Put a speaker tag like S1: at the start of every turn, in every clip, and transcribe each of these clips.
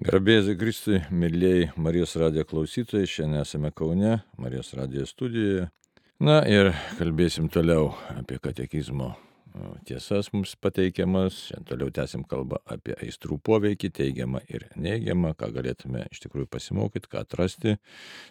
S1: Garbėsiu Kristui, mėlyjei Marijos radijo klausytojai, šiandien esame Kaune, Marijos radijo studijoje. Na ir kalbėsim toliau apie katekizmo tiesas mums pateikiamas. Šiandien toliau tęsim kalbą apie aistrų poveikį, teigiamą ir neigiamą, ką galėtume iš tikrųjų pasimokyti, ką atrasti,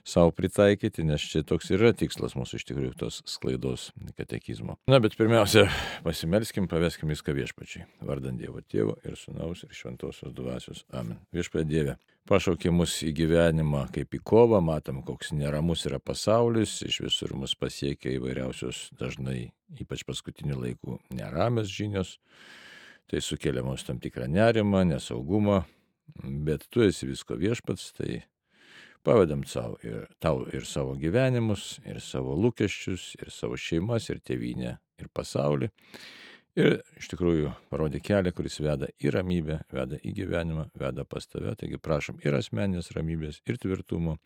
S1: savo pritaikyti, nes čia toks yra tikslas mūsų iš tikrųjų tos sklaidos katekizmo. Na, bet pirmiausia, pasimelskim, paveskim viską viešpačiai. Vardant Dievo Tėvo ir Sūnaus ir Šventosios Dvasios. Amen. Viešpatie Dieve, pašaukė mus į gyvenimą kaip į kovą, matom, koks neramus yra pasaulis, iš visur mus pasiekia įvairiausios dažnai, ypač paskutinių laikų, neramios žinios, tai sukelia mums tam tikrą nerimą, nesaugumą, bet tu esi visko viešpats, tai pavedam tau ir savo gyvenimus, ir savo lūkesčius, ir savo šeimas, ir tėvynę, ir pasaulį. Ir iš tikrųjų parodė kelią, kuris veda į ramybę, veda į gyvenimą, veda pas tave. Taigi prašom ir asmeninės ramybės, ir tvirtumo,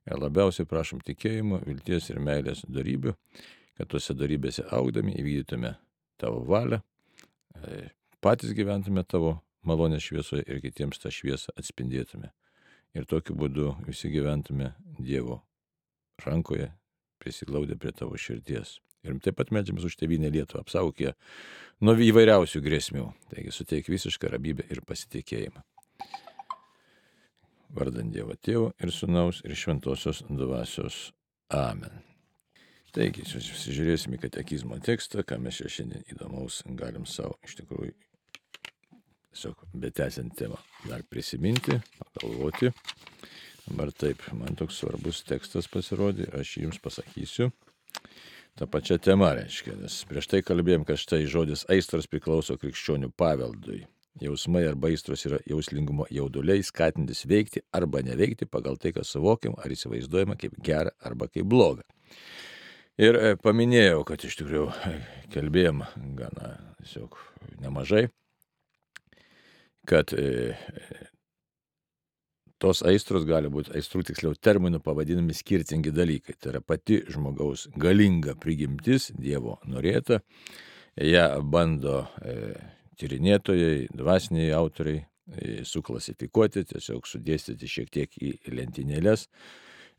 S1: ir labiausiai prašom tikėjimo, vilties ir meilės darybių, kad tuose darybėse augdami įvykdytume tavo valią, patys gyventume tavo malonės šviesoje ir kitiems tą šviesą atspindėtume. Ir tokiu būdu visi gyventume Dievo rankoje, prisiglaudę prie tavo širdies. Ir taip pat meldžiamės už tėvynę Lietuvą, apsaugok ją nuo įvairiausių grėsmių. Taigi suteik visišką ramybę ir pasitikėjimą. Vardant Dievo Tėvo ir Sūnaus ir Šventosios Dvasios. Amen. Taigi, susižiūrėsime į katekizmo tekstą, ką mes čia šiandien įdomaus galim savo iš tikrųjų tiesiog betęsiant temą dar prisiminti, pagalvoti. Dabar taip, man toks svarbus tekstas pasirodė, aš jums pasakysiu. Ta pačia tema reiškia, nes prieš tai kalbėjom, kad štai žodis aistros priklauso krikščionių paveldui. Jausmai arba aistros yra jauslingumo jauduliai, skatintis veikti arba neveikti pagal tai, kas suvokiam ar įsivaizduojama kaip gera arba kaip bloga. Ir paminėjau, kad iš tikrųjų kalbėjom gana tiesiog nemažai, kad tos aistros gali būti, aistrų tiksliau terminų pavadinami skirtingi dalykai. Tai yra pati žmogaus galinga prigimtis, Dievo norėta. Ją bando tyrinėtojai, dvasiniai autoriai suklasifikuoti, tiesiog sudėstyti šiek tiek į lentynėles,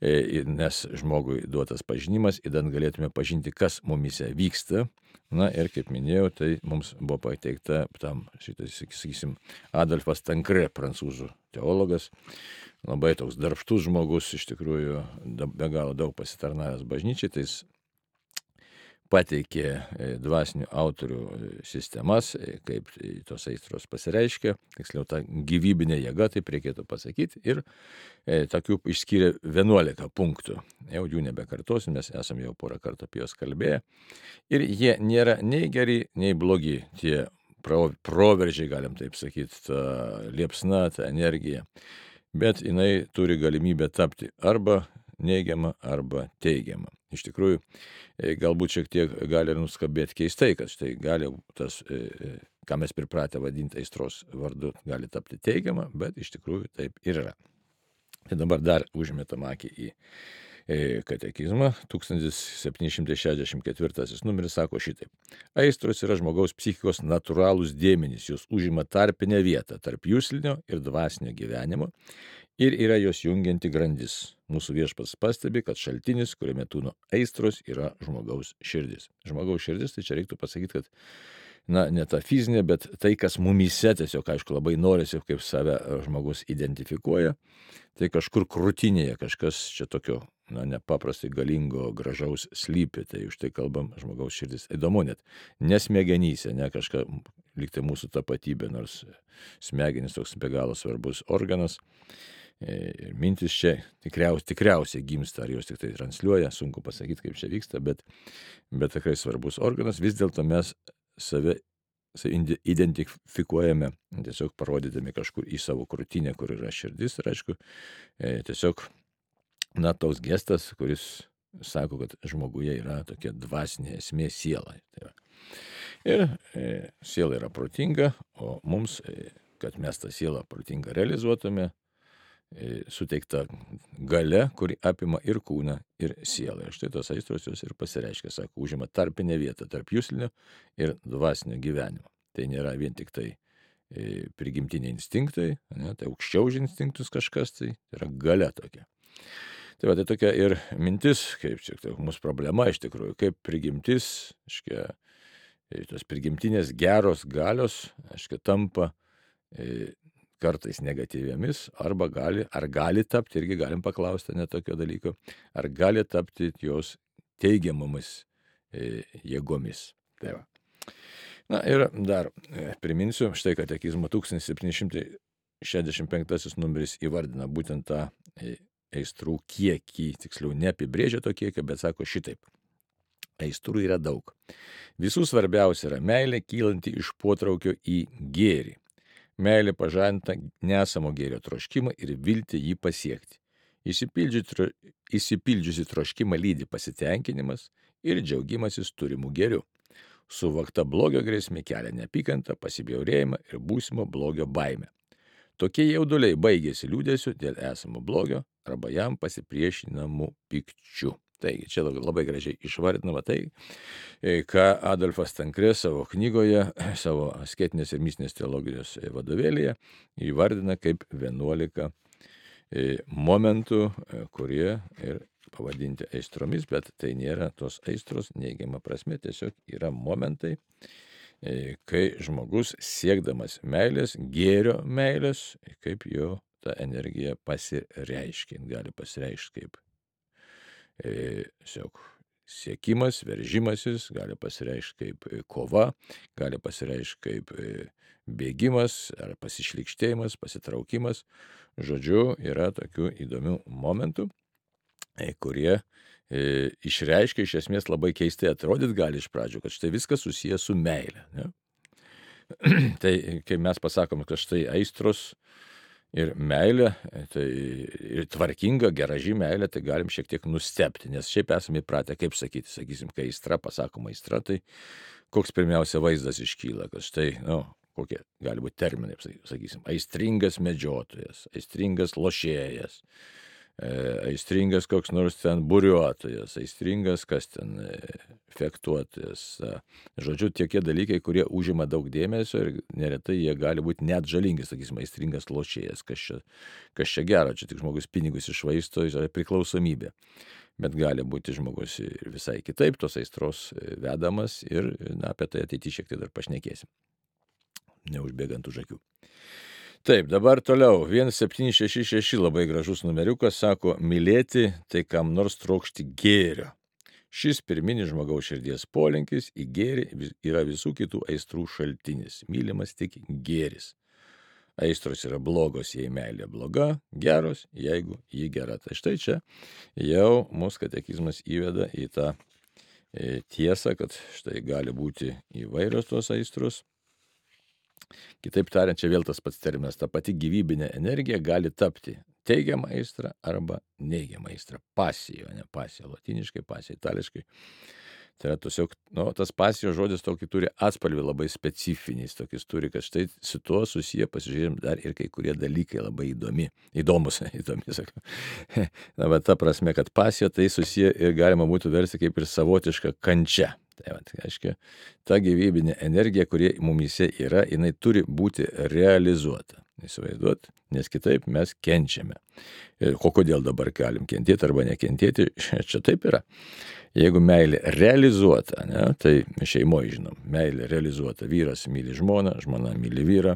S1: nes žmogui duotas pažinimas, idant galėtume pažinti, kas mumise vyksta. Na ir kaip minėjau, tai mums buvo pateikta tam, sakysim, Adolfas Tankre, prancūzų teologas, labai toks darbštus žmogus, iš tikrųjų be galo daug pasitarnavęs bažnyčiai, tai jis pateikė dvasinių autorių sistemas, kaip tos aistros pasireiškia, tiksliau ta gyvybinė jėga, taip reikėtų pasakyti, ir tokių išskyrė 11 punktų. Jau jų nebekartosim, mes esame jau porą kartų apie juos kalbėję. Ir jie nėra nei geri, nei blogi, tie proveržiai, galim taip sakyti, ta liepsna, ta energija. Bet jinai turi galimybę tapti arba neigiama, arba teigiama. Iš tikrųjų, galbūt šiek tiek gali ir nuskambėti keistai, kad štai gali tas, ką mes pripratę vadinti aistros vardu, gali tapti teigiama, bet iš tikrųjų taip ir yra. Tai dabar dar užmetam akį į katekizmą. 1764 numeris sako šitaip. Aistros yra žmogaus psichikos natūralūs dėmenys, jos užima tarpinę vietą tarp juslinio ir dvasinio gyvenimo ir yra jos jungianti grandis. Mūsų viešpats pastebi, kad šaltinis, kuriame tūno aistros, yra žmogaus širdis. Žmogaus širdis, tai čia reiktų pasakyti, kad ne ta fizinė, bet tai, kas mumyse tiesiog, aišku, labai norisi, kaip save žmogus identifikuoja, tai kažkur krūtinėje kažkas čia tokio, nepaprastai galingo, gražaus slypi, tai už tai kalbam žmogaus širdis. Įdomu net, nesmegenyse, ne kažką, lyg tai mūsų tapatybė, nors smegenys toks be galo svarbus organas. Ir mintis čia tikriausiai gimsta, ar jos tik tai transliuoja, sunku pasakyti, kaip čia vyksta, bet tikrai svarbus organas. Vis dėlto mes save identifikuojame, tiesiog parodydami kažkur į savo krūtinę, kur yra širdis. Ir aišku, tiesiog, toks gestas, kuris sako, kad žmoguje yra tokia dvasinė esmė siela. Ir siela yra protinga, o mums, kad mes tą sielą protingą realizuotume, suteikta galia, kuri apima ir kūną, ir sielą. Ir štai tos aistros jos ir pasireiškia, sako, užima tarpinę vietą tarp juslinio ir dvasinio gyvenimo. Tai nėra vien tik tai prigimtiniai instinktai, ne, tai aukščiau už instinktus kažkas, tai yra galia tokia. Tai tokia ir mintis, kaip čia tai mūsų problema iš tikrųjų, kaip prigimtis, tos prigimtinės geros galios, tampa kartais negatyviamis, ar gali tapti, irgi galim paklausti net tokio dalyko, ar gali tapti jos teigiamomis jėgomis. Tai va. Na ir dar priminsiu, štai katekizmo 1765 numeris įvardina būtent tą aistrų kiekį, tiksliau neapibrėžia to kiekio, bet sako šitaip. Aistrų yra daug. Visų svarbiausia yra meilė kylanti iš potraukio į gėrį. Meilė pažadina nesamo gėrio troškimą ir viltį jį pasiekti. Išsipildžiusi troškimą lydi pasitenkinimas ir džiaugimasis turimų gėrių. Suvokta blogio grėsmė kelia neapykantą, pasibjaurėjimą ir būsimo blogio baimę. Tokie jauduliai baigėsi liūdėsiu dėl esamo blogio arba jam pasipriešinamų pykčių. Taigi, čia labai gražiai išvardinama tai, ką Adolfas Tankre savo knygoje, savo asketinės ir mistinės teologijos vadovėlyje įvardina kaip 11 momentų, kurie ir pavadinti aistromis, bet tai nėra tos aistros neigiama prasme, tiesiog yra momentai, kai žmogus siekdamas meilės, gėrio meilės, kaip jo ta energija pasireiškia. Gali pasireikšti kaip siekimas, veržimasis, gali pasireikšti kaip kova, gali pasireikšti kaip bėgimas ar pasišlykštėjimas, pasitraukimas. Žodžiu, yra tokių įdomių momentų, kurie išreiškia iš esmės labai keistai atrodyt gali iš pradžių, kad štai viskas susijęs su meile. Ne? Tai kai mes pasakome, kad štai aistros ir meilė, tai ir tvarkinga, geraži meilė, tai galim šiek tiek nustebti, nes šiaip esame įpratę, kaip sakyti, sakysim, kai aistra, pasakoma aistra, tai koks pirmiausia vaizdas iškyla, kad štai, kokie gali būti terminai, sakysim, aistringas medžiotojas, aistringas lošėjas, aistringas koks nors ten buriuotojas, aistringas kas ten fektuotojas. Žodžiu, tokie dalykai, kurie užima daug dėmesio ir neretai jie gali būti net žalingi, sakysim, aistringas lošėjas, kas čia gero, čia tik žmogus pinigus išvaisto, yra priklausomybė. Bet gali būti žmogus ir visai kitaip, tos aistros vedamas ir apie tai ateityje šiek tiek dar pašnekėsim, neužbėgant už akių. Taip, dabar toliau, 1766 labai gražus numeriukas, sako, mylėti tai kam nors trokšti gėrio. Šis pirminis žmogaus širdies polinkis į gėrį yra visų kitų aistrų šaltinis, mylimas tik gėris. Aistros yra blogos, jei meilė bloga, geros, jeigu ji gera. Tai štai čia jau mūsų katekizmas įveda į tą tiesą, kad štai gali būti įvairios tos aistros. Kitaip tariant, čia vėl tas pats terminas, ta pati gyvybinė energija gali tapti teigiama aistra arba neigiama aistra. Pasija, ne pasija, latiniškai, pasija, itališkai. Tai yra tiesiog, tas pasijos žodis tokį turi atspalvį labai specifinis, tokis turi, kad štai su tuo susiję, pasižiūrėjom, dar ir kai kurie dalykai labai įdomi, sakau. Na, bet ta prasme, kad pasija tai susiję ir galima būtų versti kaip ir savotiška kančia. Tai reiškia, ta gyvybinė energija, kurie mumyse yra, jinai turi būti realizuota. Įsivaizduot, nes kitaip mes kenčiame. Ir kodėl dabar galim kentėti arba nekentėti, čia taip yra. Jeigu meilė realizuota, ne, tai šeimoje žinom, meilė realizuota, vyras myli žmoną, žmona myli vyrą,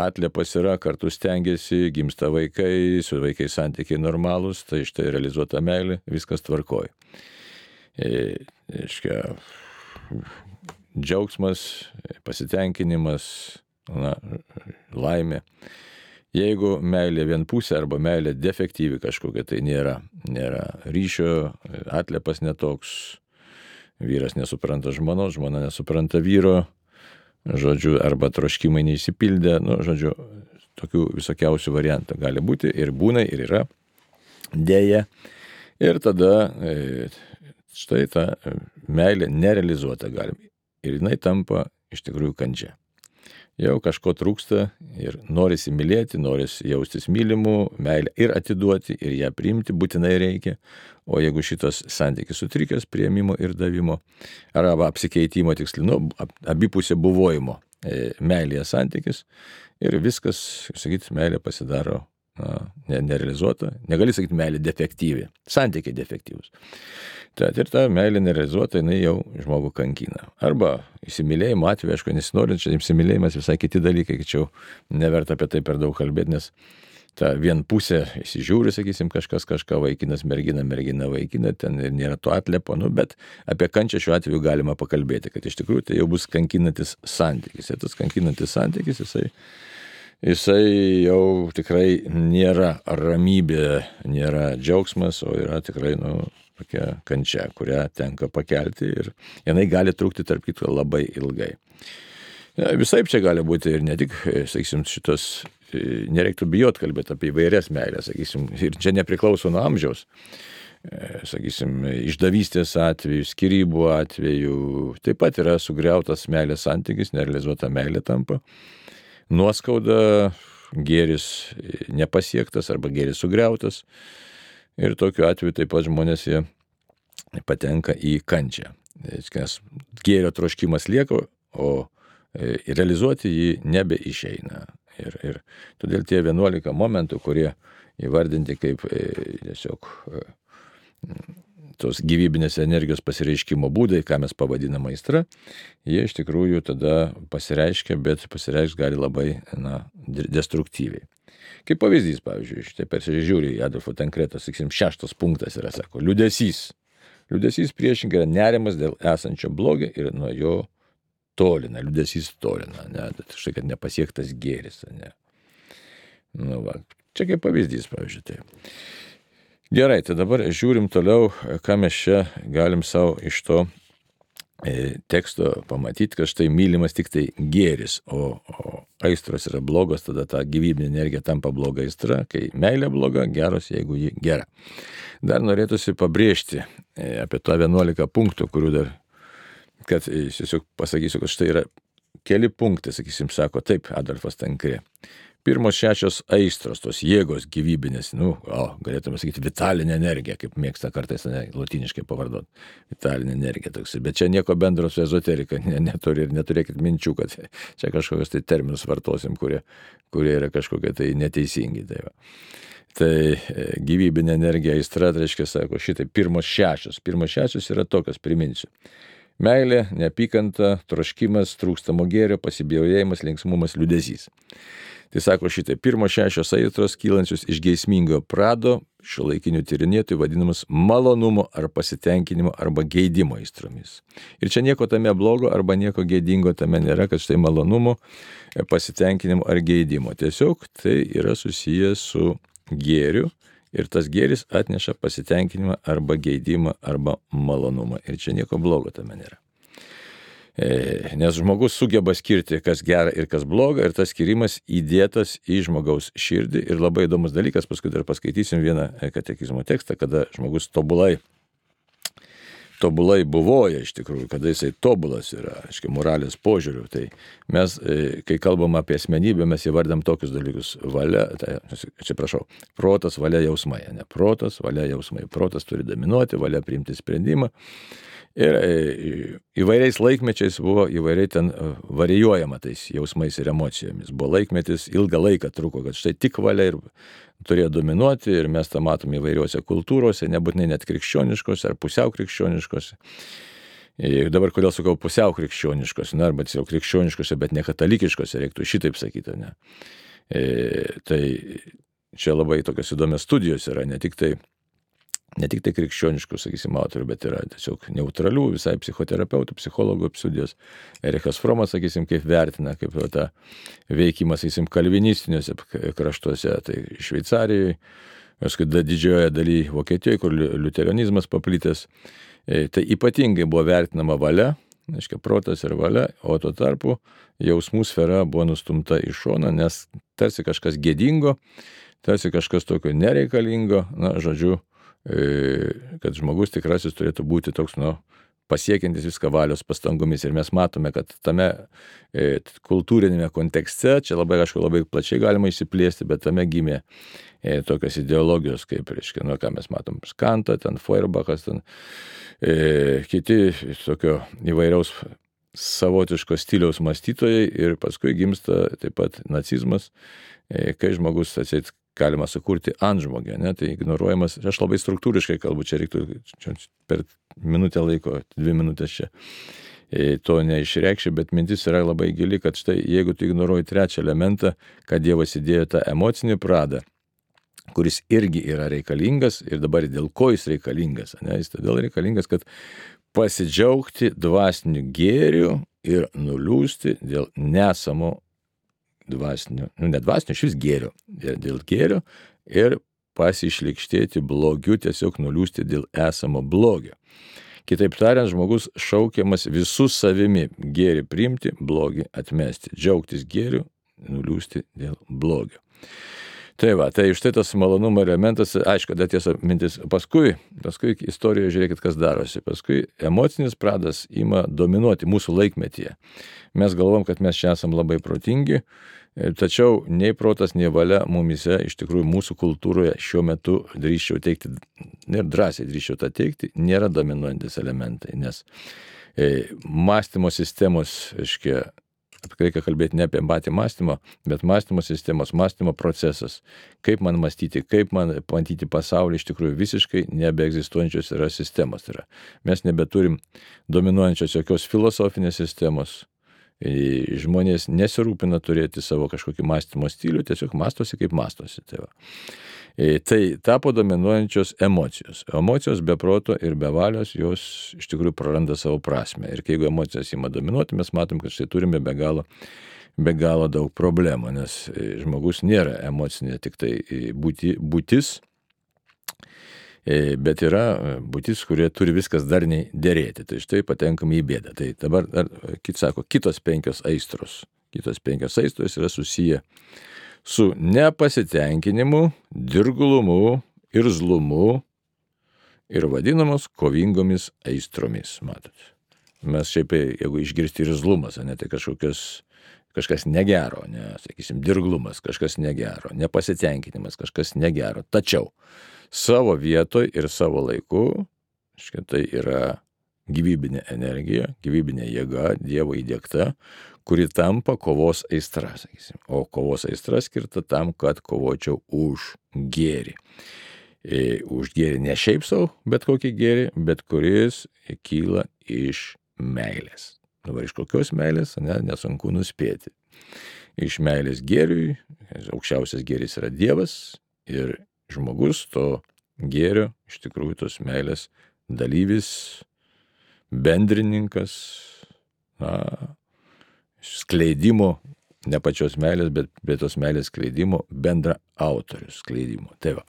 S1: atliepas yra, kartu stengiasi, gimsta vaikai, su vaikais santykiai normalūs, tai štai realizuota meilė, viskas tvarkoja. Džiaugsmas, pasitenkinimas, laimė. Jeigu meilė vienpusė arba meilė defektyvi kažkokia, tai nėra ryšio, atliepas netoks, vyras nesupranta žmonos, žmona nesupranta vyro, žodžiu, arba troškimai neįsipildė, žodžiu, tokių visokiausių variantų gali būti ir būna ir yra, dėja. Ir tada štai ta meilė nerealizuota galim ir jinai tampa iš tikrųjų kančia. Jau kažko trūksta ir norisi mylėti, norisi jaustis mylimu, meilę ir atiduoti, ir ją priimti būtinai reikia. O jeigu šitas santykis sutrikęs priėmimo ir davimo, arba apsikeitimo tiksliai, abipusė buvojimo, meilėje santykis ir viskas, sakyt, meilė pasidaro nerealizuota. Negali sakyti meilė defektyvi, santykiai defektyvus. Tad ir ta meilė nerealizuota, jinai jau žmogų kankina. Arba įsimylėjimo atveju, aišku, nesinorint, čia įsimylėjimas visai kiti dalykai, tačiau neverta apie tai per daug kalbėti, nes ta vien pusė įsižiūri, sakysim, kažkas kažką, vaikinas, mergina, mergina, vaikina, ten ir nėra to atlepo, bet apie kančią šiuo atveju galima pakalbėti, kad iš tikrųjų tai jau bus kankinantis santykis. Ir tas kankinantis santykis, jisai jau tikrai nėra ramybė, nėra džiaugsmas, o yra tikrai, tokia kančia, kurią tenka pakelti ir jinai gali trukti, tarp kitko, labai ilgai. Visaip čia gali būti ir ne tik, sakysim, šitos, nereiktų bijot kalbėti apie įvairias meilės, sakysim, ir čia nepriklauso nuo amžiaus, sakysim, išdavystės atveju, skyrybų atveju, taip pat yra sugriautas meilės santykis, nerealizuota meilė tampa, nuoskauda, gėris nepasiektas arba gėris sugriautas ir tokiu atveju taip pat žmonės jie patenka į kančią, nes gėrio troškimas lieka, o realizuoti jį nebeišeina. Ir todėl tie 11 momentų, kurie įvardinti kaip tiesiog tos gyvybinės energijos pasireiškimo būdai, ką mes pavadiname aistra, jie iš tikrųjų tada pasireiškia, bet pasireiškia gali labai destruktyviai. Kaip pavyzdys, pavyzdžiui, štai persižiūri į Adolfo Tankreto, sakysim, 6 punktas yra, sako, liūdesys. Liūdesys priešingai yra nerimas dėl esančio blogio ir nuo jo tolina, liūdesys tolina, štai kad nepasiektas gėris, ne. Čia kaip pavyzdys, pavyzdžiui, tai. Gerai, tai dabar žiūrim toliau, ką mes čia galim savo iš to teksto pamatyti, kad štai mylimas tik tai gėris, o aistros yra blogos, tada ta gyvybinė energija tampa bloga aistra, kai meilė bloga, geros, jeigu ji gera. Dar norėtųsi pabrėžti apie tą 11 punktų, kurių dar kad tiesiog pasakysiu, kad štai yra keli punktai, sakysim, sako taip Adolfas Tankre. Pirmos 6 aistros, tos jėgos gyvybinės, galėtume sakyti, vitalinė energija, kaip mėgsta kartais lotyniškai pavardot, vitalinė energija toks. Bet čia nieko bendro su ezoterika neturi ir neturėkit minčių, kad čia kažkokios tai terminus vartosim, kurie yra kažkokie tai neteisingi. Tai gyvybinė energija aistra, tai reiškia, sako, šitai pirmos 6. Pirmos 6 yra tokios, priminsiu. Meilė, neapykanta, troškimas, trūkstamo gėrio, pasibjaurėjimas, linksmumas, liūdesys. Tai sako šitai, pirmos 6 aistros kylančios iš geismingo prado, šiuolaikinių tyrinėtojų vadinamas malonumo ar pasitenkinimo arba geidimo aistromis. Ir čia nieko tame blogo arba nieko geidingo tame nėra, kad štai malonumo, pasitenkinimo ar geidimo. Tiesiog tai yra susijęs su gėriu. Ir tas gėris atneša pasitenkinimą arba geidimą arba malonumą. Ir čia nieko blogo tame nėra. Nes žmogus sugeba skirti, kas gera ir kas bloga, ir tas skirimas įdėtas į žmogaus širdį. Ir labai įdomus dalykas, paskui dar paskaitysim vieną katekizmo tekstą, kada žmogus tobulai buvoja iš tikrųjų, kada jisai tobulas yra, aiškiai, moralės požiūrių. Tai mes, kai kalbam apie asmenybę, mes įvardam tokius dalykus. Valia, protas, valia, jausmai. Ne? Protas, valia, jausmai. Protas turi dominuoti, valia priimti sprendimą. Ir įvairiais laikmečiais buvo įvairiai ten varijuojama tais jausmais ir emocijomis. Buvo laikmetis, ilgą laiką truko, kad štai tik valia ir turėjo dominuoti ir mes tą matom įvairiuose kultūrose, nebūtinai net krikščioniškose ar pusiau krikščioniškose. Ir dabar kodėl sakau pusiau krikščioniškose, arba tiesiog krikščioniškose, bet ne katalikiškose, reiktų šitaip sakyti. Ne? Tai čia labai tokios įdomios studijos yra, ne tik tai krikščioniškų, sakysim, autorių, bet yra tiesiog neutralių, visai psichoterapeutų, psichologų studijos. Erichas Fromas, sakysim, kaip vertina, kaip tą veikimą, sakysim, kalvinistiniuose kraštuose, tai Šveicarijoje, paskui didžiojoje dalyje Vokietijoje, kur liuteronizmas paplitęs, tai ypatingai buvo vertinama valia, aiškiai, protas ir valia, o tuo tarpu jausmų sfera buvo nustumta į šoną, nes tarsi kažkas gėdingo, tarsi kažkas tokio nereikalingo, žodžiu, kad žmogus tikrasis turėtų būti toks, pasiekiantis viską valios pastangomis. Ir mes matome, kad tame kultūrinėme kontekste, čia labai plačiai galima išsiplėsti, bet tame gimė tokios ideologijos, kaip, reiškia, ką mes matom, Kantą, ten Feuerbachas, ten kiti tokio įvairiaus savotiško stiliaus mąstytojai ir paskui gimsta taip pat nacizmas, kai žmogus atseit galima sukurti antžmogį, ne, tai ignoruojamas, aš labai struktūriškai kalbu, čia reiktų per minutę laiko, 2 minutės čia to neišreikščiau, bet mintis yra labai gili, kad štai jeigu tu ignoruoji trečią elementą, kad Dievas įdėjo tą emocinį pradą, kuris irgi yra reikalingas ir dabar dėl ko jis reikalingas, ne, jis todėl reikalingas, kad pasidžiaugti dvasiniu gėriu ir nuliūsti dėl nesamo dvasinio, ne dvasinio, šis gėrio, dėl gėrio ir pasišlikštėti blogiu, tiesiog nuliūsti dėl esamo blogio. Kitaip tariant, žmogus šaukiamas visų savimi gėrį priimti, blogį atmesti, džiaugtis gėriu, nuliūsti dėl blogio. Tai va, tai štai tas malonumo elementas, aišku, dar tiesa mintis, paskui istorijoje žiūrėkit, kas darosi, paskui emocinis pradas ima dominuoti mūsų laikmetyje. Mes galvom, kad mes čia esam labai protingi, tačiau nei protas, nei valia mumise, iš tikrųjų mūsų kultūroje šiuo metu drįsčiau teikti, ir drąsiai drįsčiau tą teikti, nėra dominuojantis elementai, nes mąstymo sistemos, reikia kalbėti ne apie patį mąstymą, bet mąstymo sistemos, mąstymo procesas, kaip man mąstyti, kaip man matyti pasaulį, iš tikrųjų visiškai nebeegzistuojančios yra sistemos. Tai yra, mes nebeturim dominuojančios jokios filosofinės sistemos. Žmonės nesirūpina turėti savo kažkokį mąstymo stilių, tiesiog mąstosi kaip mąstosi. Tai tapo dominuojančios emocijos. Emocijos be proto ir be valios, jos iš tikrųjų praranda savo prasme. Ir jeigu emocijos ima dominuoti, mes matom, kad štai turime be galo daug problemų, nes žmogus nėra emocinė tik tai būtis, bet yra būtis, kurie turi viskas darniai dėrėti. Tai štai patenkame į bėdą. Tai dabar, sako, kitos 5 aistros. Kitos 5 aistros yra susiję su nepasitenkinimu, dirglumu, irzlumu ir vadinamos kovingomis aistromis. Matot. Mes šiaip, jeigu išgirsti irzlumas, ne, tai kažkas negero, ne, sakysim, dirglumas, kažkas negero, nepasitenkinimas, kažkas negero. Tačiau savo vietoj ir savo laiku, tai yra gyvybinė energija, gyvybinė jėga, Dievo įdiegta, kuri tampa kovos aistra, sakysim. O kovos aistra skirta tam, kad kovočiau už gėrį. Už gėrį ne šiaip savo, bet kokį gėrį, bet kuris kyla iš meilės. Dabar iš kokios meilės, nesunku nuspėti. Iš meilės gėriui, aukščiausias gėris yra Dievas ir žmogus to gėrio, iš tikrųjų tos meilės dalyvis, bendrininkas, skleidimo, ne pačios meilės, bet tos meilės skleidimo, bendra autorius skleidimo. Tai va.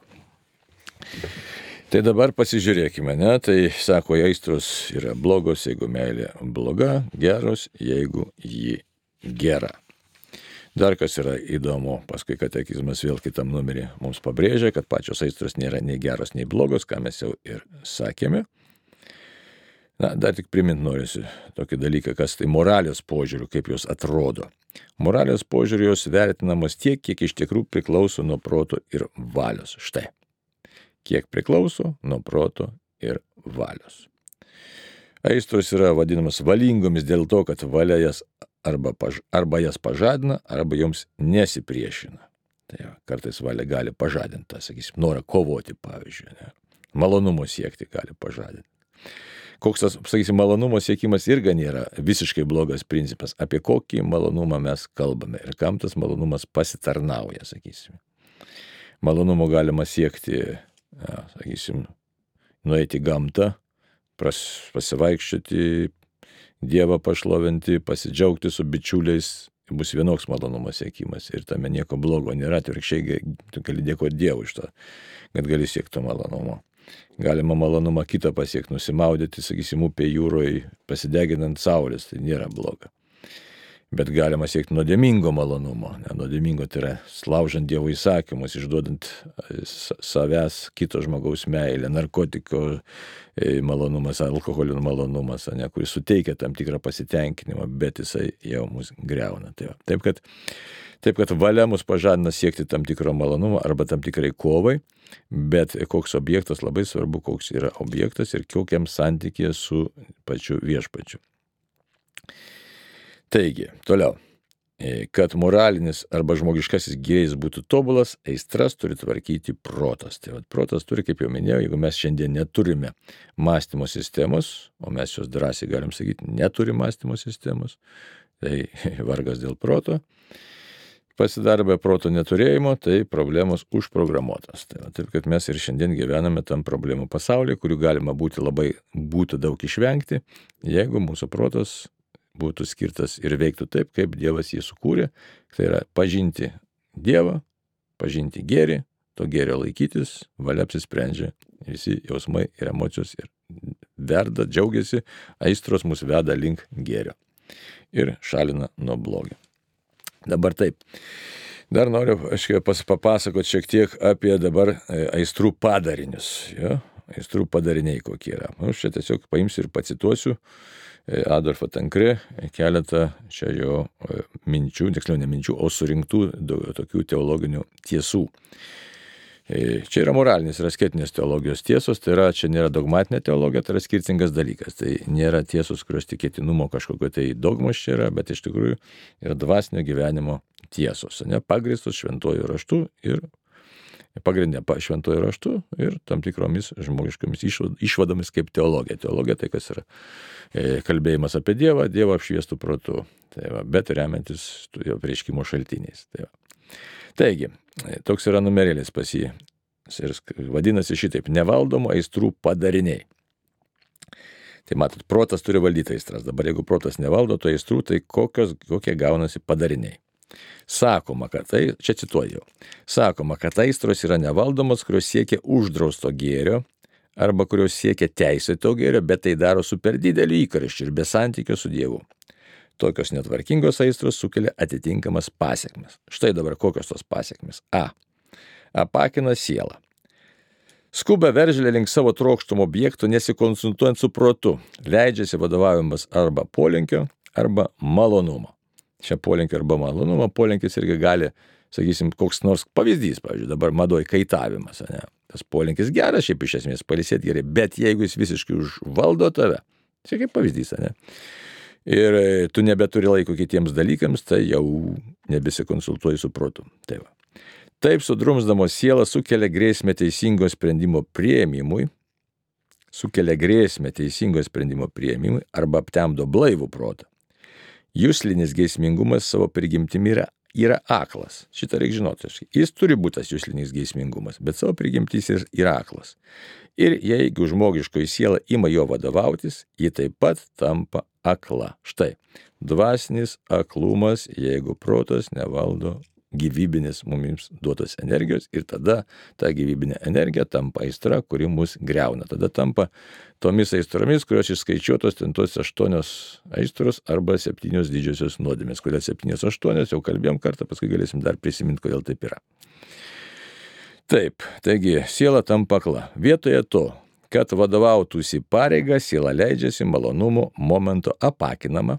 S1: Tai dabar pasižiūrėkime, ne? Tai sako, aistros yra blogos, jeigu meilė bloga, geros, jeigu ji gera. Dar kas yra įdomu, paskui katekizmas vėl kitam numerį mums pabrėžia, kad pačios aistros nėra nei geros, nei blogos, ką mes jau ir sakėme. Dar tik primint norisi tokį dalyką, kas tai moralės požiūrių, kaip jos atrodo. Moralės požiūrių jos vertinamos tiek, kiek iš tikrųjų priklauso nuo proto ir valios. Štai. Kiek priklauso nuo proto ir valios. Aistros yra vadinamas valingomis dėl to, kad valia jas arba jas pažadina, arba joms nesipriešina. Tai kartais valia gali pažadinti, sakysim, norą kovoti, pavyzdžiui. Ne? Malonumo siekti gali pažadinti. Koks tas, sakysim, malonumo siekimas irgi nėra visiškai blogas principas. Apie kokį malonumą mes kalbame ir kam tas malonumas pasitarnauja, sakysim. Malonumo galima siekti, sakysim, nueiti į gamtą, pasivaikščioti, Dievą pašlovinti, pasidžiaugti su bičiuliais, bus vienoks malonumo siekimas ir tame nieko blogo nėra, atvirkščiai tu gali dėkoti Dievui iš to, kad gali siekti malonumo. Galima malonumą kitą pasiekti, nusimaudyti, sakysim, upė jūroje, pasideginant saulės, tai nėra bloga. Bet galima siekti nuodėmingo malonumo. Nuodėmingo tai yra laužant Dievo įsakymus, išduodant savęs kito žmogaus meilę, narkotiko malonumas, alkoholio malonumas, kuris suteikia tam tikrą pasitenkinimą, bet jisai jau mus griauna. Taip kad valia mus pažadina siekti tam tikro malonumo arba tam tikrai kovai, bet koks objektas, labai svarbu, koks yra objektas ir kokiam santykėje su pačiu viešpačiu. Taigi, toliau. Kad moralinis arba žmogiškasis gėris būtų tobulas, aistras turi tvarkyti protas. Tai protas turi, kaip jau minėjau, jeigu mes šiandien neturime mąstymo sistemos, o mes jos drąsiai galim sakyti, neturi mąstymo sistemos, tai vargas dėl proto. Pasidarė be proto neturėjimo, tai problemos užprogramuotas. Tai taip, kad mes ir šiandien gyvename tam problemų pasaulyje, kurių galima būtų daug išvengti, jeigu mūsų protas būtų skirtas ir veiktų taip, kaip Dievas jį sukūrė. Tai yra pažinti Dievą, pažinti gėrį, to gėrio laikytis, valia apsisprendžia, visi jausmai ir emocijos ir verda, džiaugiasi, aistros mus veda link gėrio ir šalina nuo blogio. Dabar taip. Dar noriu papasakoti šiek tiek apie dabar aistrų padarinius. Jo? Aistrų padariniai kokie yra. Aš čia tiesiog paimsiu ir pacituosiu Adolfą Tankre keletą čia jo minčių, tiksliau ne minčių, o surinktų tokių teologinių tiesų. Čia yra moralinės ir asketinės teologijos tiesos, tai yra, čia nėra dogmatinė teologija, tai yra skirtingas dalykas. Tai nėra tiesos, kurios tikėtinumo kažkokio tai dogmos čia yra, bet iš tikrųjų yra dvasinio gyvenimo tiesos, pagrįstos šventuoju raštu ir pagrindė šventuoju raštu ir tam tikromis žmogiškomis išvadomis kaip teologija. Teologija tai kas yra kalbėjimas apie Dievą, Dievą apšviestų protu, tai va, bet remiantis jo apreiškimo šaltiniais. Tai va. Taigi, toks yra numerėlis pas jį ir vadinasi šitaip: nevaldomų aistrų padariniai. Tai matot, protas turi valdyti aistras. Dabar jeigu protas nevaldo to aistrų, tai kokie gaunasi padariniai. Sakoma, kad čia cituoju, sakoma, kad aistros yra nevaldomos, kurios siekia uždrausto gėrio arba kurios siekia teisėto gėrio, bet tai daro su per dideliu įkarščiu ir be santykio su Dievu. Tokios netvarkingos aistros sukelia atitinkamas pasekmes. Štai dabar kokios tos pasekmes. Apakina sielą. Skuba veržlė link savo trokštumo objektų, nesikonsultuojant su protu, leidžiasi vadovaujamas arba polinkio, arba malonumo. Čia polinkio arba malonumo, polinkis irgi gali, sakysim, koks nors pavyzdys, pavyzdžiui, dabar madoj kaitavimas, ne? Tas polinkis geras, šiaip iš esmės pailsėti gerai, bet jeigu jis visiškai užvaldo tave, čia kaip pavyzdys, ne? Ir tu nebeturi laiko kitiems dalykams, tai jau nebesikonsultuoji su protu. Tai va. Taip sudrumsdamos sielą sukelia grėsmę teisingo sprendimo priėmimui arba aptemdo blaivų protą. Juslinis geismingumas savo prigimtimi yra aklas. Šitą reikia žinoti. Jis turi būti tas juslinis geismingumas, bet savo prigimtis yra aklas. Ir jeigu žmogiškoji siela ima jo vadovautis, ji taip pat tampa akla. Štai, dvasinis aklumas, jeigu protas nevaldo gyvybinės mums duotos energijos, ir tada ta gyvybinė energija tampa aistra, kuri mus greuna. Tada tampa tomis aistromis, kurios išskaičiuotos ten tos 8 aistros arba 7 didžiosios nuodėmės. Kodėl 7-8, jau kalbėjom kartą, paskui galėsim dar prisiminti, kodėl taip yra. Taip, taigi siela tampa akla. Vietoje to, kad vadovautųsi pareiga, siela leidžiasi malonumo momento apakinama,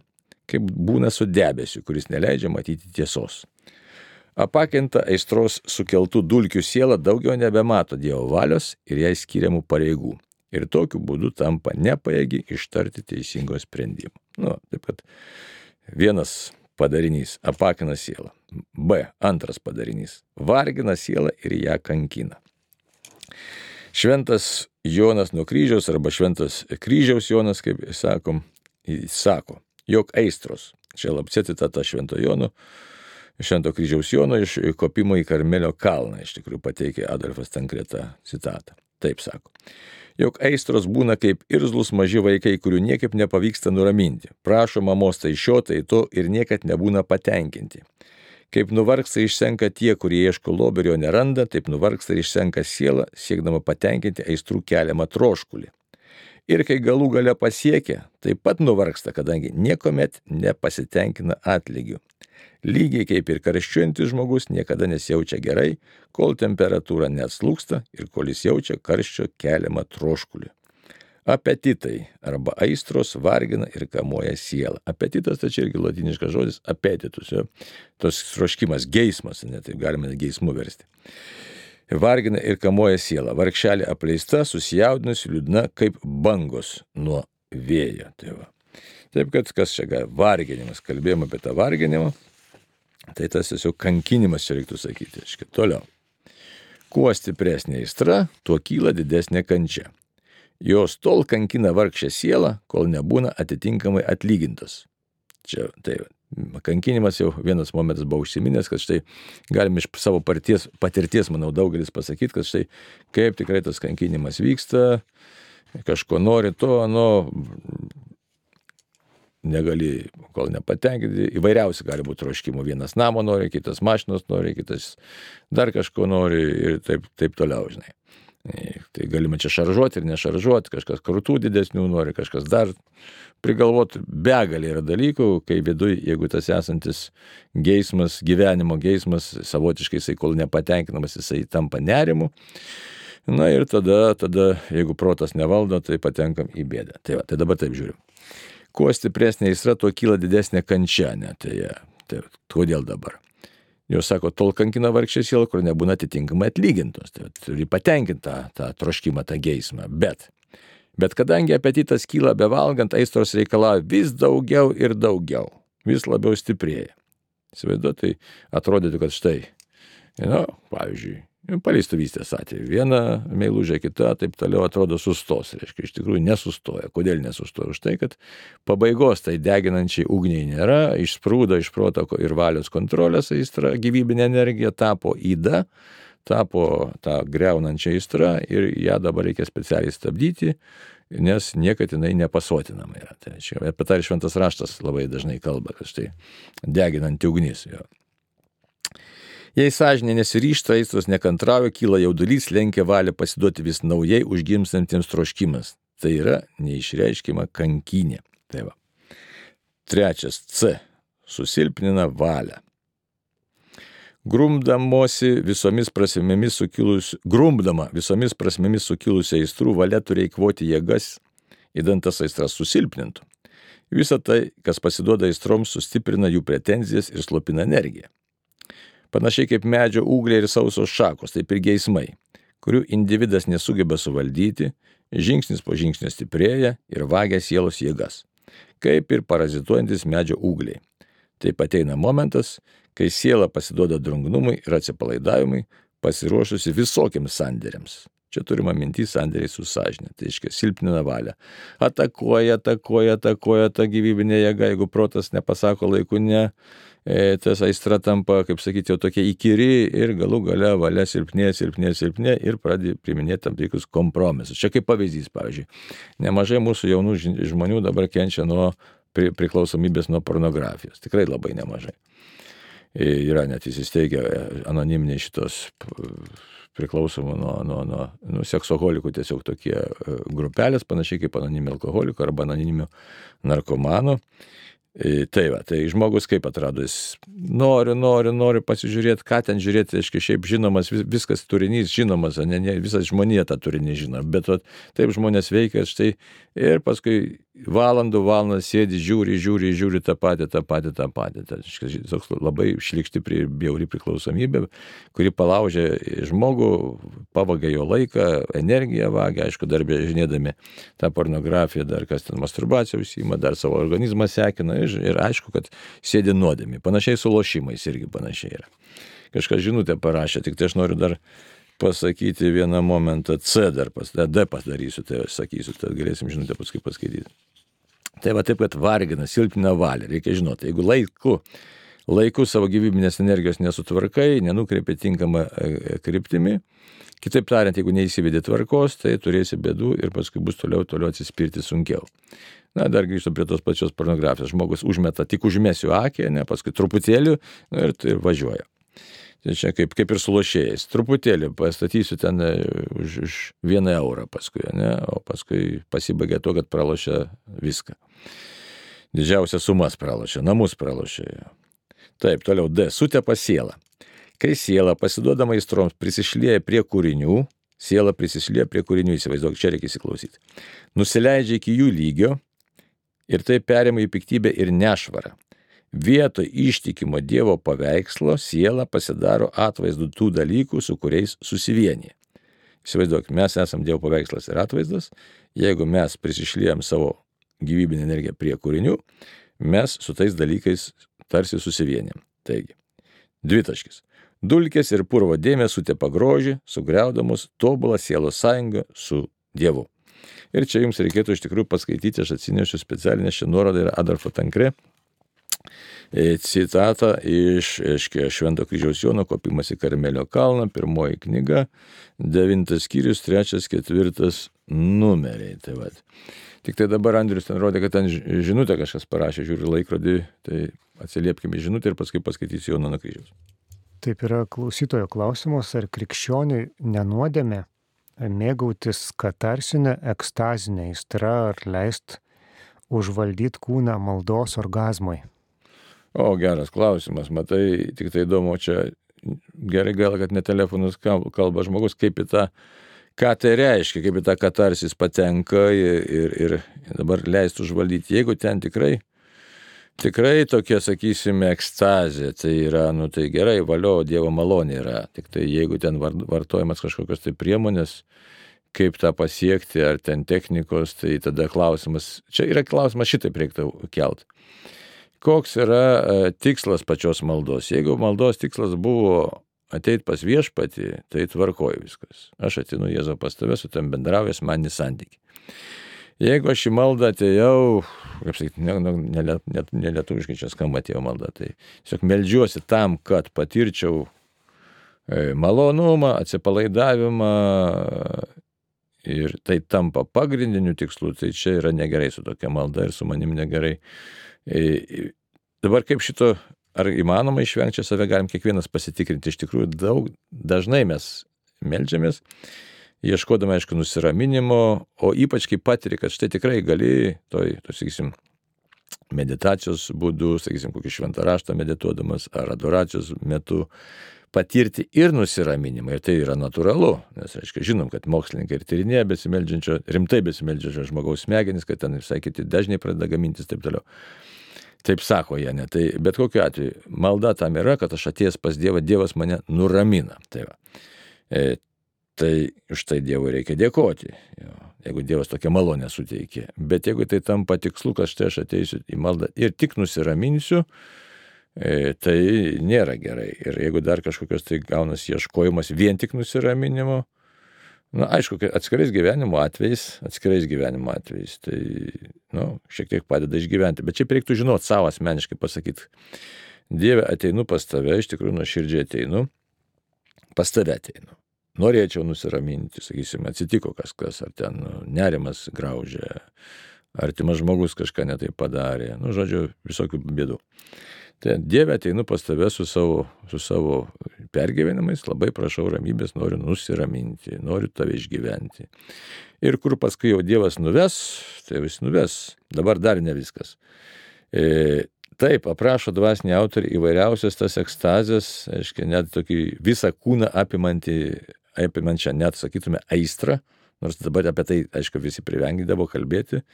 S1: kaip būna su debesiu, kuris neleidžia matyti tiesos. Apakinta aistros sukeltų dulkių siela daugiau nebemato Dievo valios ir jai skiriamų pareigų. Ir tokiu būdu tampa nepajėgi ištarti teisingo sprendimo. Taip kad vienas padarinys apakina sielą. Antras padarinys vargina sielą ir ją kankina. Šventas Jonas nuo kryžiaus arba šventas kryžiaus Jonas, kaip sakom, sako, jog aistros, čia lapčia citata Švento kryžiaus Jono iš kopimo į Karmelio kalną, iš tikrųjų pateikė Adolfas Tankre tą citatą. Taip sako, jog aistros būna kaip irzlus maži vaikai, kurių niekaip nepavyksta nuraminti. Prašo mamos tai šio, tai to ir niekad nebūna patenkinti. Kaip nuvargsta išsenka tie, kurie ieško lobio ir jo neranda, taip nuvargsta ir išsenka siela, siekdama patenkinti aistrų keliamą troškulį. Ir kai galų gale pasiekia, taip pat nuvargsta, kadangi niekuomet nepasitenkina atlygiu. Lygiai kaip ir karščiuojantis žmogus niekada nesijaučia gerai, kol temperatūra neatslūgsta ir kol jis jaučia karščio keliamą troškulį. Apetitai arba aistros vargina ir kamuoja sielą. Apetitas tai čia irgi latiniškas žodis apetitus, jo. Tos troškimas, geismas, taip galima geismu versti. Vargina ir kamuoja sielą. Vargšelė apleista, susijaudinusi, liūdna kaip bangos nuo vėjo. Tai va. Taip, kad kas čia varginimas, kalbėjom apie tą varginimą, tai tas tiesiog kankinimas čia reiktų sakyti. Iškai, toliau. Kuo stipresnė aistra, tuo kyla didesnė kančia. Jos tol kankina vargšę sielą, kol nebūna atitinkamai atlygintas. Čia tai kankinimas jau vienas momentas buvo užsiminęs, kad štai galime iš savo patirties, manau, daugelis pasakyti, kad štai kaip tikrai tas kankinimas vyksta, kažko nori to, negali, kol nepatenkinti, įvairiausi gali būti troškimų. Vienas namo nori, kitas mašinos nori, kitas dar kažko nori ir taip toliau, žinai. Tai galima čia šaržuoti ir nešaržuoti, kažkas krūtų didesnių nori, kažkas dar prigalvoti. Begalė yra dalykų, kai viduj, jeigu tas esantis geismas, gyvenimo geismas, savotiškai jisai kol nepatenkinamas, jisai tampa nerimu. Na ir tada, jeigu protas nevaldo, tai patenkam į bėdą. Tai dabar taip žiūrim. Kuo stipresnė aistra, tuo kyla didesnė kančia. Tai kodėl dabar? Jos sako, tol kankina vargšę sielą, kur nebūna atitinkamai atlygintos. Tai turi patenkinti tą troškimą, tą geismą. Bet kadangi apetitas kyla bevalgant, aistros reikalauja vis daugiau ir daugiau. Vis labiau stiprėja. Įsivaizduoju, tai atrodytų, kad štai, pavyzdžiui, paleistuvystės atveju. Viena meilužė, kita, taip toliau atrodo sustos. Reiškia, iš tikrųjų nesustoja. Kodėl nesustoja? Už tai, kad pabaigos tai deginančiai ugniai nėra, išsprūdo iš proto ir valios kontrolės aistra, gyvybinė energija tapo yda, tapo tą greunančią aistrą ir ją dabar reikia specialiai stabdyti, nes niekad jinai nepasotinama yra. Tai apie tai šventas raštas labai dažnai kalba, kad štai deginanti ugnis. Jo. Jei sąžinė nesiryžta, aistros nekantrauja, kyla jaudulys, lenkia valią pasiduoti vis naujai užgimstantiems troškimas. Tai yra neišreiškima kankinė. Tai va. Trečias C. Susilpnina valią. Grumdama visomis prasmėmis sukilusią aistrų, valia turi eikvoti jėgas, idant tas aistras susilpnintų. Visa tai, kas pasiduoda aistroms, sustiprina jų pretenzijas ir slopina energiją. Panašiai kaip medžio ūgliai ir sausos šakos, taip ir geismai, kurių individas nesugeba suvaldyti, žingsnis po žingsnio stiprėja ir vagia sielos jėgas, kaip ir parazituojantis medžio ūgliai. Taip ateina momentas, kai siela pasiduoda drungnumui ir atsipalaidavimui, pasiruošusi visokiams sandėriams. Čia turima mintis sandėriai su sąžinė, tai reiškia silpnina valią. Atakuoja ta gyvybinė jėga, jeigu protas nepasako laiku ne, tas aistra tampa, kaip sakyti, jau tokia įkyri ir galų gale valia silpnė ir pradeda priiminėti tam tikrus kompromisus. Čia kaip pavyzdys, pavyzdžiui, nemažai mūsų jaunų žmonių dabar kenčia nuo priklausomybės nuo pornografijos. Tikrai labai nemažai. Yra net įsisteigę anoniminiai šitos priklausomų nuo seksoholikų tiesiog tokie grupelės, panašiai kaip anoniminių alkoholikų arba anoniminių narkomanų. Tai žmogus kaip atrado, jis nori pasižiūrėti, ką ten žiūrėti, aiškiai, šiaip žinomas, viskas turinys žinomas, ne, visas žmonija tą turinį žino, bet taip žmonės veikia, štai, ir paskui valandas sėdi, žiūri tą patį. Tai toks labai šlykšti bjauri priklausomybė, kuri palaužia žmogų, pavagia jo laiką, energiją vagia, aišku, dar žinėdami tą pornografiją, dar kas ten masturbaciją užsiima, dar savo organizmą sekina ir aišku, kad sėdi nuodėmi. Panašiai su lošimais irgi panašiai yra. Kažkas žinutę parašė, tik tai aš noriu dar pasakyti vieną momentą, D padarysiu, tai aš sakysiu, tai galėsim žinutę paskui paskaityti. Tai va taip, kad vargina, silpnina valią. Reikia žinoti, jeigu laiku savo gyvybinės energijos nesutvarkai, nenukreipi tinkamą kryptimi, kitaip tariant, jeigu neįsivedi tvarkos, tai turėsi bėdų ir paskui bus toliau atsispirti sunkiau. Na, dar grįžtu prie tos pačios pornografijos. Žmogus užmeta, tik užmesiu akį, paskui truputėlį ir važiuoja. Tai čia kaip ir su lošėjais. Truputėlį pastatysiu ten už 1 eurą paskui, o paskui pasibaigia to, kad pralošia viską. Didžiausias sumas pralošia, namus pralošia. Taip, toliau D. Sutepa sielą. Kai siela pasiduodama aistroms prisišlieja prie kūrinių, įsivaizduok, čia reikia įsiklausyti, nusileidžia iki jų lygio ir tai perima į piktybę ir nešvarą. Vietoj ištikimo Dievo paveikslo siela pasidaro atvaizdu tų dalykų, su kuriais susivienyje. Įsivaizduok, mes esam Dievo paveikslas ir atvaizdas, jeigu mes prisišliejam savo gyvybinę energiją prie kūrinių, mes su tais dalykais tarsi susivienėm. Taigi, dvitaškis. Dulkės ir purvo dėmės sutepa grožį, sugriaudamos tobulą sielos sąjungą su Dievu. Ir čia jums reikėtų iš tikrųjų paskaityti, aš atsinešiu specialinę šią nuorodą ir Adolfo Tankre citatą iš Švento kryžiaus Jono Kopimas į Karmelio kalną, 1 knyga, 9 skyrius, 3-4 numeriai. Tai vat. Tik tai dabar Andrius ten rodė, kad ten žinutę kažkas parašė, žiūri laikrodį, tai atsiliepkime žinutę ir paskui paskaitysiu Jono kryžiaus.
S2: Taip yra klausytojo klausimas, ar krikščioniui nenuodėmė mėgautis katarsinę ekstazinę aistrą ar leist užvaldyti kūną maldos orgazmui?
S1: O, geras klausimas, matai, tik tai įdomu, čia gerai gal, kad ne telefonus kalba žmogus, kaip į tą, ką tai reiškia, kaip į tą katarsis patenka ir dabar leist užvaldyti. Jeigu ten tikrai tokia, sakysime, ekstazė, tai yra, tai gerai, valio, Dievo malonė yra. Tik tai jeigu ten vartojamas kažkokios tai priemonės, kaip tą pasiekti, ar ten technikos, tai tada klausimas, čia yra klausimas šitaip reiktų kelt. Koks yra tikslas pačios maldos? Jeigu maldos tikslas buvo ateit pas viešpatį, tai tvarkoju viskas. Aš ateinu Jėzau pas tave, su tam bendravęs maninį santykį. Jeigu aš į maldą atėjau, kaip sakyti, nelietuviškai čia skamba atėjo malda, tai tiesiog meldžiuosi tam, kad patirčiau malonumą, atsipalaidavimą ir tai tampa pagrindiniu tikslu, tai čia yra negerai su tokia malda ir su manim negerai. Dabar kaip šito, ar įmanoma išvengti, save galim kiekvienas pasitikrinti. Iš tikrųjų, dažnai mes meldžiamės, ieškodami, aišku, nusiraminimo, o ypač kai patiri, kad štai tikrai gali, sakysim, meditacijos būdu, sakysim, kokį šventą raštą medituodamas ar adoracijos metu, patirti ir nusiraminimą. Ir tai yra natūralu, nes, aišku, žinom, kad mokslininkai ir tyrinėja rimtai besimeldžiančio žmogaus smegenis, kad ten visai kiti dažniai pradeda gamintis taip toliau. Taip sako jie, ne? Tai bet kokiu atveju, malda tam yra, kad aš atėjęs pas Dievą, Dievas mane nuramina. Tai va. Tai už tai Dievui reikia dėkoti, jeigu Dievas tokią malonę suteikė. Bet jeigu tai tampa tikslu, kad štai aš ateisiu į maldą ir tik nusiraminsiu, tai nėra gerai. Ir jeigu dar kažkokios tai gaunas ieškojimas vien tik nusiraminimo, aišku, atskirais gyvenimo atvejais, tai, šiek tiek padeda išgyventi. Bet čia reiktų žinoti savo asmeniškai pasakyti, Dieve, ateinu pas tave, iš tikrųjų nuoširdžiai ateinu, pas tave ateinu. Norėčiau nusiraminti, sakysime, atsitiko kažkas, ar ten nerimas graužia, artimas žmogus kažką netai padarė, žodžiu, visokių bėdų. Tai Dieve, ateinu pas tave su savo pergyvenimais, labai prašau ramybės, noriu nusiraminti, noriu tave išgyventi. Ir kur paskui jau Dievas nuves, tai vis nuves. Dabar dar ne viskas. Taip, aprašo dvasiniai autoriai įvairiausias tas ekstazės, aiškiai, net tokį visą kūną apimančią, net sakytume, aistrą, nors dabar apie tai, aišku, visi privengdavo kalbėti.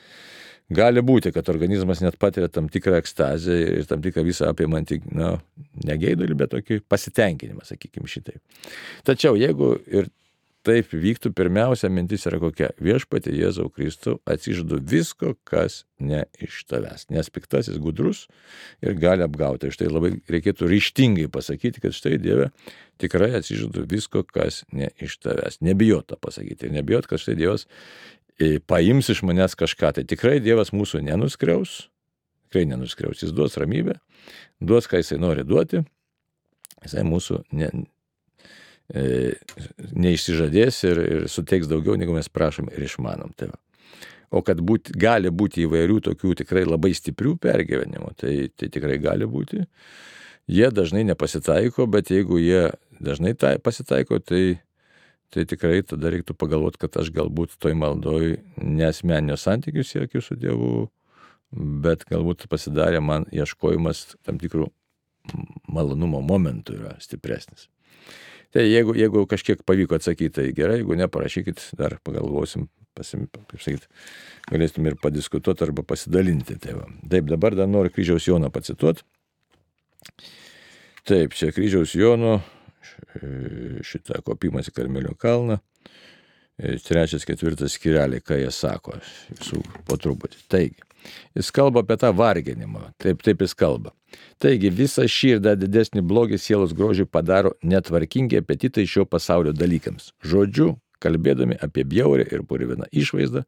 S1: Gali būti, kad organizmas net patiria tam tikrą ekstazę ir tam tikrą visą apimantį, ne geidulį, bet tokį pasitenkinimą, sakykime šitaip. Tačiau jeigu ir taip vyktų, pirmiausia mintis yra kokia: Viešpatie Jėzau Kristau, atsižadu visko, kas ne iš tavęs. Nes piktasis gudrus ir gali apgauti. Štai labai reikėtų ryžtingai pasakyti, kad štai Dieve, tikrai atsižadu visko, kas ne iš tavęs. Nebijot tą pasakyti ir nebijot, kad štai Dievas paims iš manęs kažką. Tai tikrai Dievas mūsų nenuskriaus, jis duos ramybę, duos, ką jisai nori duoti, jisai mūsų neišsižadės ir suteiks daugiau, negu mes prašom ir išmanom. Tai o kad gali būti įvairių tokių tikrai labai stiprių pergyvenimų, tai tikrai gali būti. Jie dažnai nepasitaiko, bet jeigu jie dažnai pasitaiko, tai tikrai tada reiktų pagalvoti, kad aš galbūt toj maldoj nesmeninio santykių siekiu su Dievu, bet galbūt pasidarė man ieškojimas tam tikrų malonumo momentų yra stipresnis. Tai jeigu kažkiek pavyko atsakyti, tai gerai, jeigu ne, parašykit, dar pagalvosim, galėsim ir padiskutuoti arba pasidalinti. Taip, dabar dar noriu kryžiaus Jono pacituoti. Taip, čia kryžiaus Jono, šitą Kopimas į Karmelio kalną, 3-4 skyreliai, ką jie sako, visų po truputį. Taigi, jis kalba apie tą varginimą, taip jis kalba. Taigi, visą šį ir dar didesnį blogį sielos grožiui padaro netvarkingi apetitai šio pasaulio dalykams. Žodžiu, kalbėdami apie bjaurę ir purviną išvaizdą,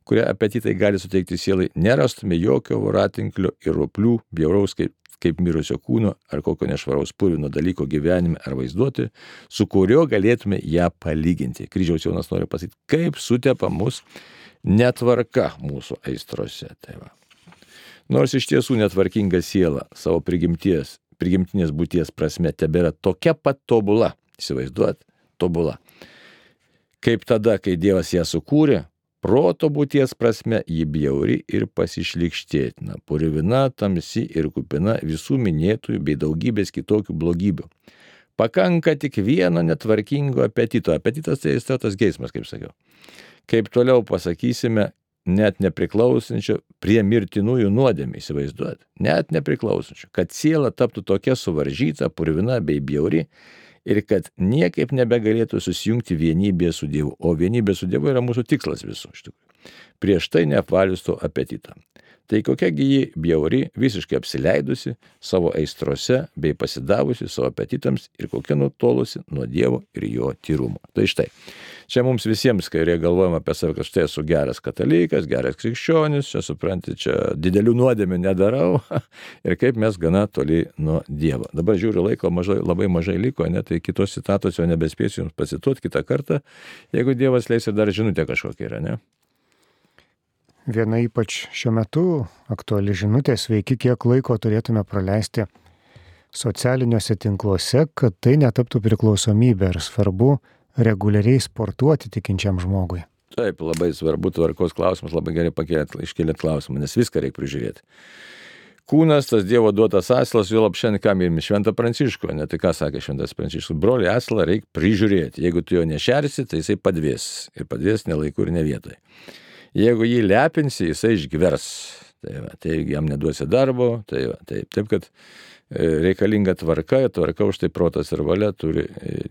S1: kurią apetitai gali suteikti sielai, nerastume jokio voratinklio ir roplių bjauraus kaip mirusio kūno ar kokio nešvaraus purvino dalyko gyvenime ar vaizduoti, su kurio galėtume ją palyginti. Kryžiaus Jonas nori pasakyti, kaip sutepa mus netvarka mūsų aistrose. Tai va. Nors iš tiesų netvarkinga siela savo prigimtinės būties prasme tebėra tokia pat tobula, įsivaizduot, tobula, kaip tada, kai Dievas ją sukūrė, proto būties prasme ji bjauri ir pasišlykštėtina, purvina, tamsi ir kupina visų minėtųjų bei daugybės kitokių blogybių. Pakanka tik vieno netvarkingo apetito. Apetitas tai tas geismas, kaip sakiau. Kaip toliau pasakysime, net nepriklausančio prie mirtinųjų nuodėmių, įsivaizduot. Net nepriklausančio, kad siela taptų tokia suvaržyta, purvina bei bjauri ir kad niekaip nebegalėtų susijungti vienybėje su Dievu. O vienybė su Dievu yra mūsų tikslas visų, iš tikrųjų. Prieš tai neapvalius to apetitą. Tai kokiagi ji bjauri, visiškai apsileidusi savo aistrose bei pasidavusi savo apetitams ir kokia nutolusi nuo Dievo ir jo tyrumo. Tai štai, čia mums visiems, kai galvojame apie save, kad štai esu geras katalikas, geras krikščionis, čia supranti, čia didelių nuodėmių nedarau ir kaip mes gana toli nuo Dievo. Dabar žiūriu, laiko labai mažai liko, tai kitos citatos jau nebespėsiu jums pasituoti kitą kartą, jeigu Dievas leis ir dar žinutė kažkokia yra, ne?
S2: Viena ypač šiuo metu aktuali žinutė, sveiki, kiek laiko turėtume praleisti socialiniuose tinkluose, kad tai netaptų priklausomybė, ir svarbu reguliariai sportuoti tikinčiam žmogui.
S1: Taip, labai svarbu tvarkos klausimas, labai gerai iškėlėt klausimą, nes viską reikia prižiūrėti. Kūnas, tas Dievo duotas asilas, jo lapšiandien ką mylime, Šventą Pranciškų, ne tai ką sakė Šventas Pranciškus, broli, asilą reikia prižiūrėti, jeigu tu jo nešersi, tai jisai padvės, ir padvės ne laiku ir ne vietoj. Jeigu jį lepinsi, jisai išgvers, tai jam neduosi darbo, taip kad reikalinga tvarka už tai protas ir valia turi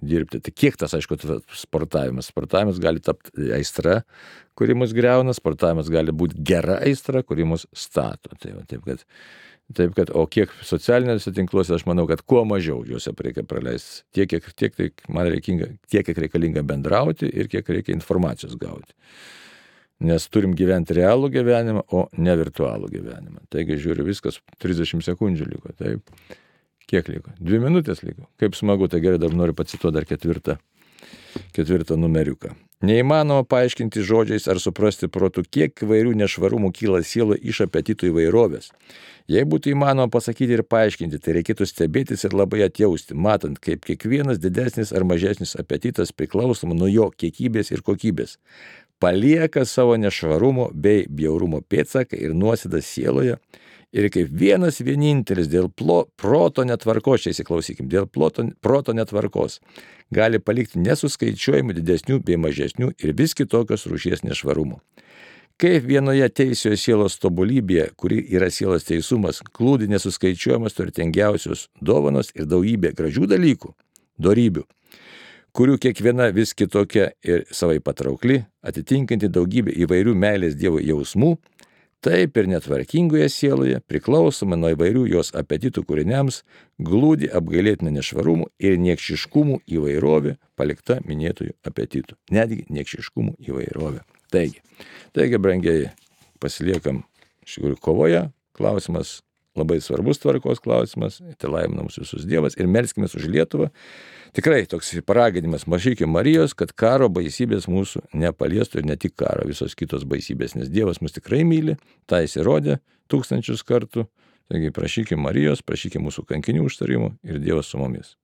S1: dirbti. Tai kiek tas, aišku, sportavimas? Sportavimas gali tapti aistra, kuri mus greuna, sportavimas gali būti gera aistra, kuri mus stato. Taip kad, o kiek socialiniuose tinkluose, aš manau, kad kuo mažiau juose reikia praleisti, tiek kiek reikalinga bendrauti ir kiek reikia informacijos gauti. Nes turim gyventi realų gyvenimą, o ne virtualų gyvenimą. Taigi žiūriu, viskas 30 sekundžių liko. Taip. Kiek liko? 2 minutės liko. Kaip smagu, tai gerai, dar noriu pacituoti dar ketvirtą numeriuką. Neįmanoma paaiškinti žodžiais ar suprasti protu, kiek įvairių nešvarumų kyla sielo iš apetitų įvairovės. Jei būtų įmanoma pasakyti ir paaiškinti, tai reikėtų stebėtis ir labai atjausti, matant, kaip kiekvienas didesnis ar mažesnis apetitas priklausomai nuo jo kiekybės ir kokybės palieka savo nešvarumo bei bjaurumo pėdsaką ir nuosėdą sieloje ir kaip vienas vienintelis dėl proto netvarkos, čia įsiklausykim, dėl proto netvarkos gali palikti nesuskaičiuojamų didesnių bei mažesnių ir vis kitokios rūšies nešvarumų. Kaip vienoje teisioje sielos tobulybėje, kuri yra sielos teisumas, glūdi nesuskaičiuojamas turtingiausios dovanos ir daugybė gražių dalykų, dorybių, kurių kiekviena vis kitokia ir savai patraukli, atitinkanti daugybę įvairių meilės Dievo jausmų, taip ir netvarkingoje sieloje, priklausomai nuo įvairių jos apetitų kūriniams, glūdi apgailėtina nešvarumų ir niekšiškumų įvairovė palikta minėtųjų apetitų. Netgi niekšiškumų įvairovė. Taigi, brangiai, pasiliekam iš tikrųjų kovoje. Klausimas labai svarbus tvarkos klausimas. Tai laimina mus visus Dievas ir melskimės už Lietuvą. Tikrai toks paraginimas, mažykim Marijos, kad karo baisybės mūsų nepaliestų ir ne tik karo, visos kitos baisybės, nes Dievas mus tikrai myli, tą jis įrodė 1000 kartų. Taigi prašykim Marijos, prašykim mūsų kankinių užtarimų ir Dievas su mumis.